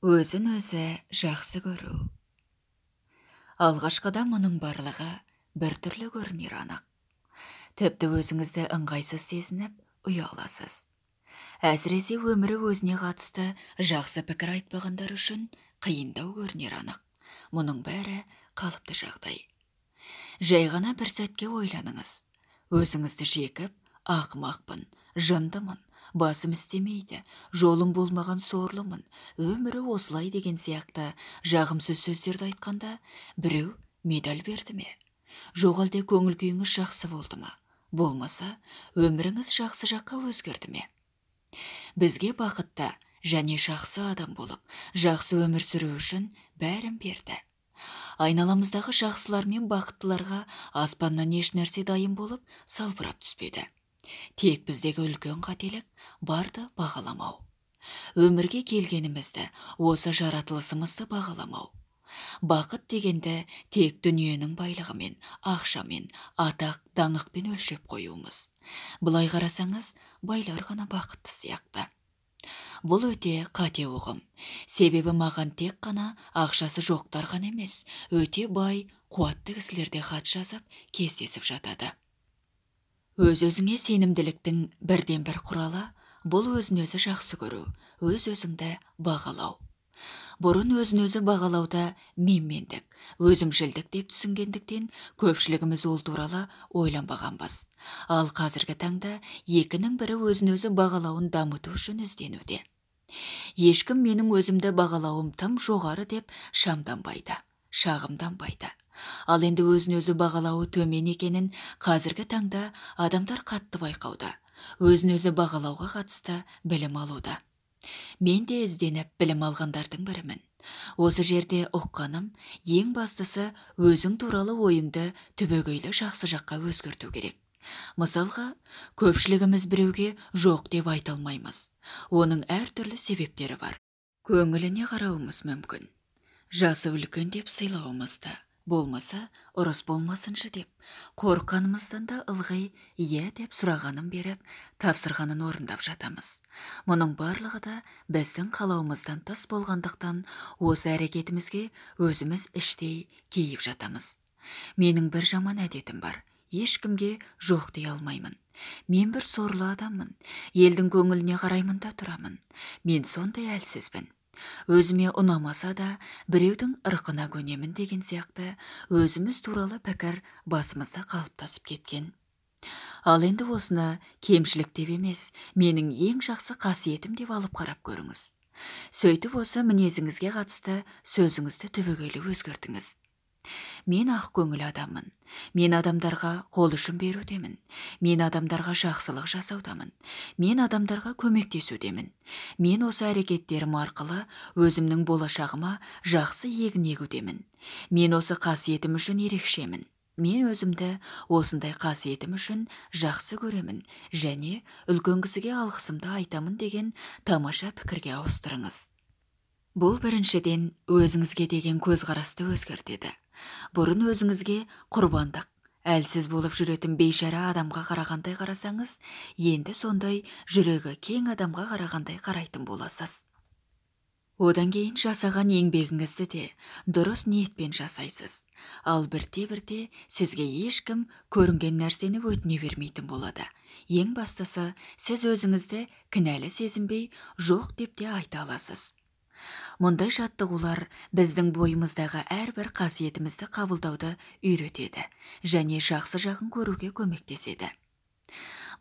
Өзін өзі жақсы көру. Алғашқыда мұның барлығы біртүрлі көрінер анық. Тіпті өзіңізді ыңғайсыз сезініп, ұяласыз. Әсіресе өмірі өзіне қатысты жақсы пікір айтпағандар үшін қиындау көрінер анық. Мұның бәрі қалыпты жағдай. Жай ғана бір сәтке ойланыңыз. Өзіңізді жекіп, ақымақпын, жындымын, басым істемейді, жолым болмаған сорлымын, өмірі осылай деген сияқты жағымсыз сөздерді айтқанда, біреу медаль берді ме? Жоқ әлде көңіл күйіңіз жақсы болды ма? Болмаса, өміріңіз жақсы жаққа өзгерді ме? Бізге бақытты және жақсы адам болып, жақсы өмір сүру үшін бәрін берді. Айналамыздағы жақсылар мен бақыттыларға аспаннан еш нәрсе дайын болып салбырап түспеді. Тек біздегі үлкен қателік барды бағаламау. Өмірге келгенімізді, осы жаратылысымызды бағаламау. Бақыт дегенді тек дүниенің байлығымен, ақшамен, атақ, даңықпен өлшеп қоюымыз. Былай қарасаңыз, байлар ғана бақытты сияқты. Бұл өте қате ұғым. Себебі маған тек қана ақшасы жоқтар ғана емес, өте бай, қуатты кісілерде хат жазып, кездесіп жатады. Өз-өзіңе сенімділіктің бірден бір құралы, бұл өзін-өзі жақсы көру, өз-өзіңді бағалау. Бұрын өзін-өзі бағалауда менмендік, өзімшілдік деп түсінгендіктен көпшілігіміз ол туралы ойланбағанбыз. Ал қазіргі таңда екінің бірі өзін-өзі бағалауын дамыту үшін ізденуде. Ешкім менің өзімді бағалауым тым жоғары деп шамданбайды, шағымданбайды. Ал енді өзін-өзі бағалауы төмен екенін қазіргі таңда адамдар қатты байқауда, өзін-өзі бағалауға қатысты білім алуда. Мен де ізденіп білім алғандардың бірімін. Осы жерде ұққаным, ең бастысы өзің туралы ойыңды түбегейлі жақсы жаққа өзгерту керек. Мысалға, көпшілігіміз біреуге жоқ деп айта алмаймыз. Оның әртүрлі себептері бар. Көңіліне қарауымыз мүмкін. Жасы үлкен деп сыйлауымызды, болмаса ұрыс болмасыншы деп, қорыққанымыздан да ылғи иә деп сұрағанын беріп, тапсырғанын орындап жатамыз. Мұның барлығы да біздің қалауымыздан тыс болғандықтан, осы әрекетімізге өзіміз іштей кейіп жатамыз. Менің бір жаман әдетім бар. Ешкімге жоқ дей алмаймын. Мен бір сорлы адаммын. Елдің көңіліне қараймын да тұрамын. Мен сондай әлсізбін. Өзіме ұнамаса да, біреудің ырқына көнемін деген сияқты өзіміз туралы пікір басымызда қалыптасып кеткен. Ал енді осыны кемшілік деп емес, менің ең жақсы қасиетім деп алып қарап көріңіз. Сөйтіп осы мінезіңізге қатысты сөзіңізді түбегейлі өзгертіңіз. Мен ақ көңіл адаммын. Мен адамдарға қол ұшын берудемін. Мен адамдарға жақсылық жасаудамын. Мен адамдарға көмектесудемін. Мен осы әрекеттерім арқылы өзімнің болашағыма жақсы егін егудемін. Мен осы қасиетім үшін ерекшемін. Мен өзімді осындай қасиетім үшін жақсы көремін және үлкен кісіге алғысымды айтамын деген тамаша пікірге ауыстырыңыз. Бұл біріншіден өзіңізге деген көзқарасты өзгертеді. Бұрын өзіңізге құрбандық, әлсіз болып жүретін бейшара адамға қарағандай қарасаңыз, енді сондай жүрегі кең адамға қарағандай қарайтын боласыз. Одан кейін жасаған еңбегіңізді де дұрыс ниетпен жасайсыз. Ал бірте-бірте сізге ешкім көрінген нәрсені өтіне бермейтін болады. Ең бастысы, сіз өзіңізді кінәлі сезінбей, жоқ деп те айта аласыз. Мұндай жаттығулар біздің бойымыздағы әрбір қасиетімізді қабылдауды үйретеді және жақсы жағын көруге көмектеседі.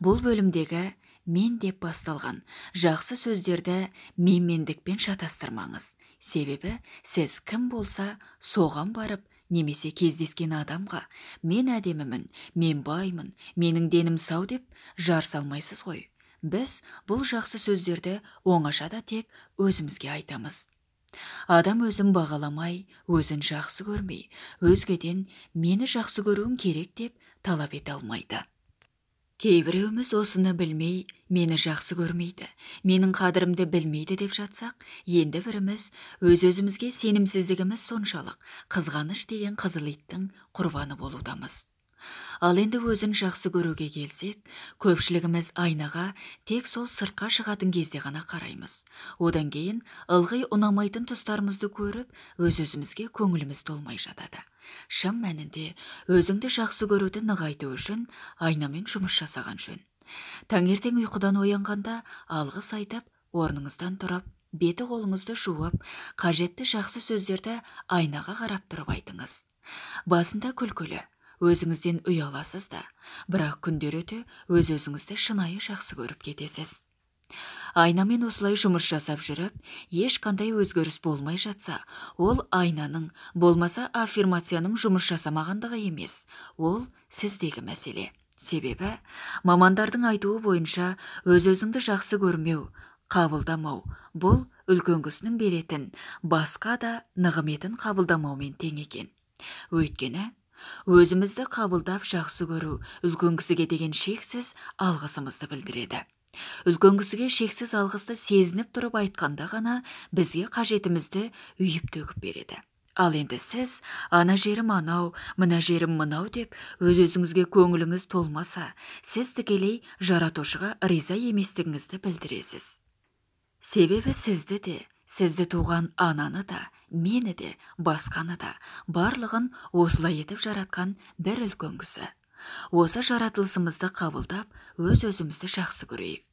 Бұл бөлімдегі мен деп басталған жақсы сөздерді менмендікпен шатастырмаңыз. Себебі сіз кім болса соған барып, немесе кездескен адамға мен әдемімін, мен баймын, менің денім сау деп жар салмайсыз ғой. Біз бұл жақсы сөздерді оңашада тек өзімізге айтамыз. Адам өзін бағаламай, өзін жақсы көрмей, өзгеден мені жақсы көруің керек деп талап ете алмайды. Кейбіреуіміз осыны білмей, мені жақсы көрмейді, менің қадірімді білмейді деп жатсақ, енді біріміз өз-өзімізге сенімсіздігіміз соншалық қызғаныш деген қызыл иттің құрбаны болудамыз. Ал енді өзін жақсы көруге келсек, көпшілігіміз айнаға тек сол сыртқа шығатын кезде ғана қараймыз. Одан кейін ылғи ұнамайтын тұстарымызды көріп, өз-өзімізге көңіліміз толмай жатады. Шын мәнінде өзіңді жақсы көруді нығайту үшін айнамен жұмыс жасаған жөн. Таңертең ұйқыдан оянғанда алғыс айтып, орныңыздан тұрып, беті қолыңызды жуып, қажетті жақсы сөздерді айнаға қарап тұрып айтыңыз. Басында күлкілі, өзіңізден ұяласыз да, бірақ күндер өте өз-өзіңізді шынайы жақсы көріп кетесіз. Айнамен осылай жұмыс жасап жүріп, ешқандай өзгеріс болмай жатса, ол айнаның, болмаса аффирмацияның жұмыс жасамағандығы емес, ол сіздегі мәселе. Себебі, мамандардың айтуы бойынша өз-өзіңді жақсы көрмеу, қабылдамау, бұл үлкен кісінің беретін, басқа да нығметін қабылдамаумен тең екен. Өйткені, өзімізді қабылдап жақсы көру үлкен кісіге деген шексіз алғысымызды білдіреді. Үлкен кісіге шексіз алғысты сезініп тұрып айтқанда ғана бізге қажетімізді үйіп төгіп береді. Ал енді сіз ана жерім анау, мына жерім мынау деп өз-өзіңізге көңіліңіз толмаса, сіз тікелей жаратушыға риза еместігіңізді білдіресіз. Себебі сізді де, сізді туған ананы да, мені де, басқаны да, барлығын осылай етіп жаратқан бір үлкен кісі. Осы жаратылысымызды қабылдап, өз-өзімізді жақсы көрейік.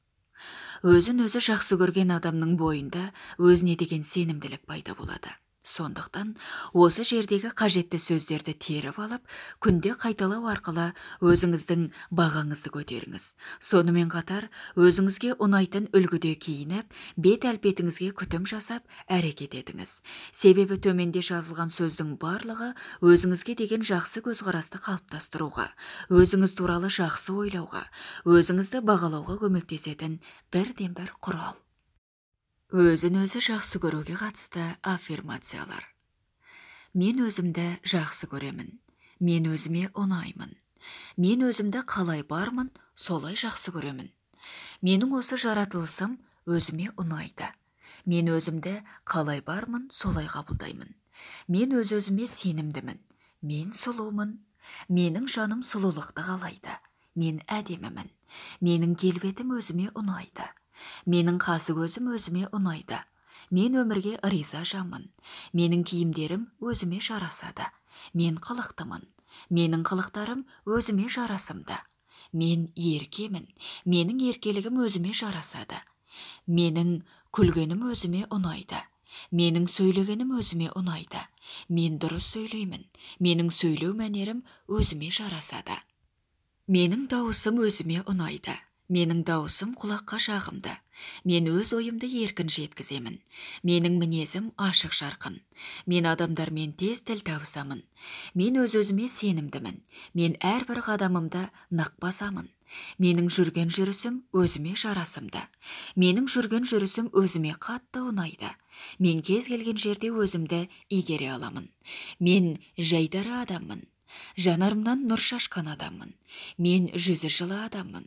Өзін өзі жақсы көрген адамның бойында өзіне деген сенімділік пайда болады. Сондықтан осы жердегі қажетті сөздерді теріп алып, күнде қайталау арқылы өзіңіздің бағаңызды көтеріңіз. Сонымен қатар өзіңізге ұнайтын үлгіде киініп, бет әлпетіңізге күтім жасап, әрекет етіңіз. Себебі төменде жазылған сөздің барлығы өзіңізге деген жақсы көзқарасты қалыптастыруға, өзіңіз туралы жақсы ойлауға, өзіңізді бағалауға көмектесетін бірден бір құрал. Өзін өзі жақсы көруге қатысты аффирмациялар. Мен өзімді жақсы көремін. Мен өзіме ұнаймын. Мен өзімді қалай бармын, солай жақсы көремін. Менің осы жаратылысым өзіме ұнайды. Мен өзімді қалай бармын, солай қабылдаймын. Мен өз-өзіме сенімдімін. Мен сұлумын. Менің жаным сұлулықты қалайды. Мен әдемімін. Менің келбетім өзіме ұнайды. Менің қасы көзім өзіме ұнайды. Мен өмірге риза жанмын. Менің киімдерім өзіме жарасады. Мен қылықтымын. Менің қылықтарым өзіме жарасымды. Мен еркемін. Менің еркелігім өзіме жарасады. Менің күлгенім өзіме ұнайды. Менің сөйлегенім өзіме ұнайды. Мен дұрыс сөйлеймін. Менің сөйлеу мәнерім өзіме жарасады. Менің дауысым өзіме ұнайды. Менің дауысым құлаққа жағымды. Мен өз ойымды еркін жеткіземін. Менің мінезім ашық жарқын. Мен адамдармен тез тіл табысамын. Мен өз-өзіме сенімдімін. Мен әрбір қадамымды нық басамын. Менің жүрген жүрісім өзіме жарасымды. Менің жүрген жүрісім өзіме қатты ұнайды. Мен кез келген жерде өзімді игере аламын. Мен жайдары адаммын. Жанарымнан нұр шашқан адаммын. Мен жүзі жылы адаммын.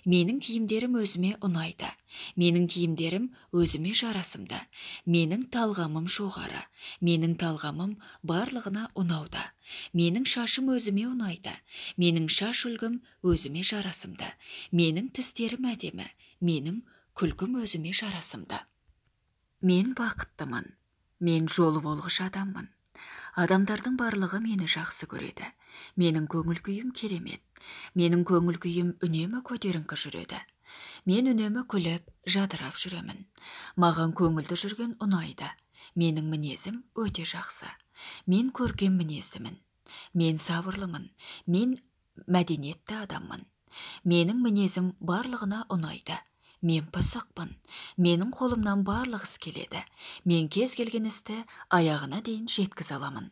Менің киімдерім өзіме ұнайды. Менің киімдерім өзіме жарасымды. Менің талғамым жоғары. Менің талғамым барлығына ұнауда. Менің шашым өзіме ұнайды. Менің шаш үлгім өзіме жарасымды. Менің тістерім әдемі. Менің күлкім өзіме жарасымды. Мен бақыттымын. Мен жолы болғыш адаммын. Адамдардың барлығы мені жақсы көреді. Менің көңіл күйім керемет. Менің көңіл күйім үнемі көтеріңкі жүреді. Мен үнемі күліп, жадырап жүремін. Маған көңілді жүрген ұнайды. Менің мінезім өте жақсы. Мен көркем мінездімін. Мен сабырлымын. Мен мәдениетті адаммын. Менің мінезім барлығына ұнайды. Мен пысықпын. Менің қолымнан барлық іс келеді. Мен кез келген істі аяғына дейін жеткізе аламын.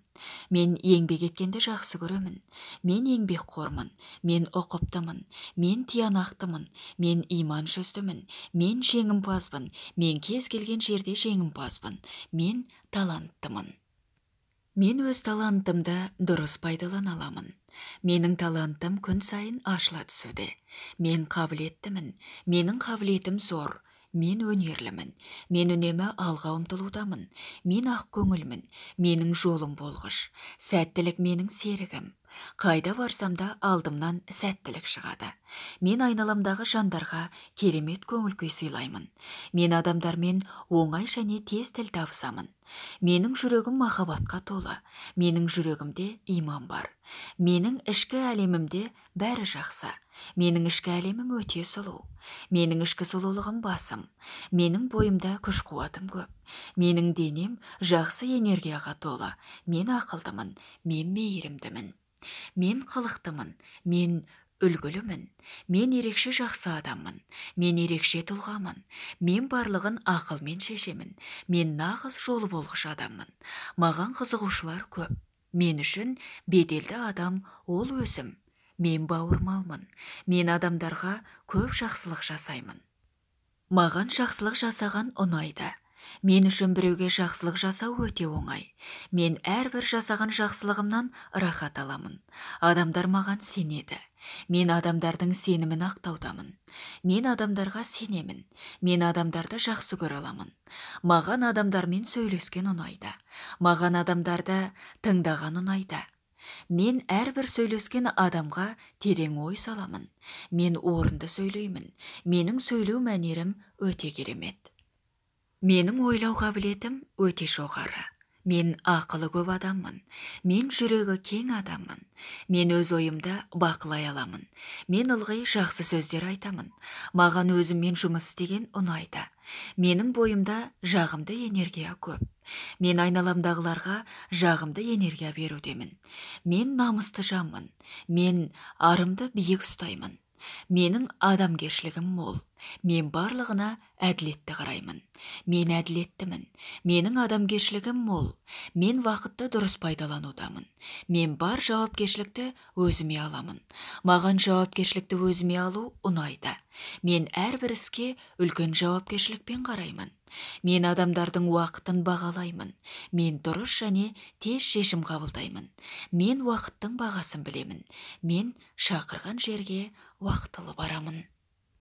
Мен еңбек еткенді жақсы көремін. Мен еңбекқормын. Мен ұқыптымын. Мен тиянақтымын. Мен иман жүздімін. Мен жеңімпазбын. Мен кез келген жерде жеңімпазбын. Мен таланттымын. Мен өз талантымды дұрыс пайдалана аламын. Менің талантым күн сайын ашыла түсуде. Мен қабілеттімін. Менің қабілетім зор. Мен өнерлімін. Мен үнемі алға ұмтылудамын. Мен ақ көңілмін. Менің жолым болғыш. Сәттілік менің серігім. Қайда барсам да алдымнан сәттілік шығады. Мен айналамдағы жандарға керемет көңіл күй сыйлаймын. Мен адамдармен оңай және тез тіл табысамын. Менің жүрегім махаббатқа толы. Менің жүрегімде иман бар. Менің ішкі әлемімде бәрі жақсы. Менің ішкі әлемім өте сұлу. Менің ішкі сұлулығым басым. Менің бойымда күш-қуатым көп. Менің денем жақсы энергияға толы. Мен ақылдымын. Мен мейірімдімін. Мен қылықтымын, мен үлгілімін, мен ерекше жақсы адаммын, мен ерекше тұлғамын, мен барлығын ақылмен шешемін, мен нағыз жолы болғыш адаммын, маған қызығушылар көп, мен үшін беделді адам ол өзім, мен бауырмалмын, мен адамдарға көп жақсылық жасаймын. Маған жақсылық жасаған ұнайды. Мен үшін біреуге жақсылық жасау өте оңай. Мен әрбір жасаған жақсылығымнан рахат аламын. Адамдар маған сенеді. Мен адамдардың сенімін ақтаудамын. Мен адамдарға сенемін. Мен адамдарды жақсы көре аламын. Маған адамдармен сөйлескен ұнайды. Маған адамдарды тыңдаған ұнайды. Мен әрбір сөйлескен адамға терең ой саламын. Мен орынды сөйлеймін. Менің сөйлеу мәнерім өте керемет. Менің ойлау қабілетім өте жоғары. Мен ақылы көп адаммын. Мен жүрегі кең адаммын. Мен өз ойымды бақылай аламын. Мен ылғи жақсы сөздер айтамын. Маған өзіммен жұмыс істеген ұнайды. Менің бойымда жағымды энергия көп. Мен айналамдағыларға жағымды энергия берудемін. Мен намысты жанмын. Мен арымды биік ұстаймын. Менің адамгершілігім мол. Мен барлығына әділетті қараймын. Мен әділеттімін. Менің адамгершілігім мол. Мен вақытты дұрыс пайдаланудамын. Мен бар жауапкершілікті өзіме аламын. Маған жауапкершілікті өзіме алу ұнайды. Мен әрбір іске үлкен жауапкершілікпен қараймын. Мен адамдардың уақытын бағалаймын. Мен дұрыс және тез шешім қабылдаймын. Мен уақыттың бағасын білемін. Мен шақырған жерге уақытылы барамын.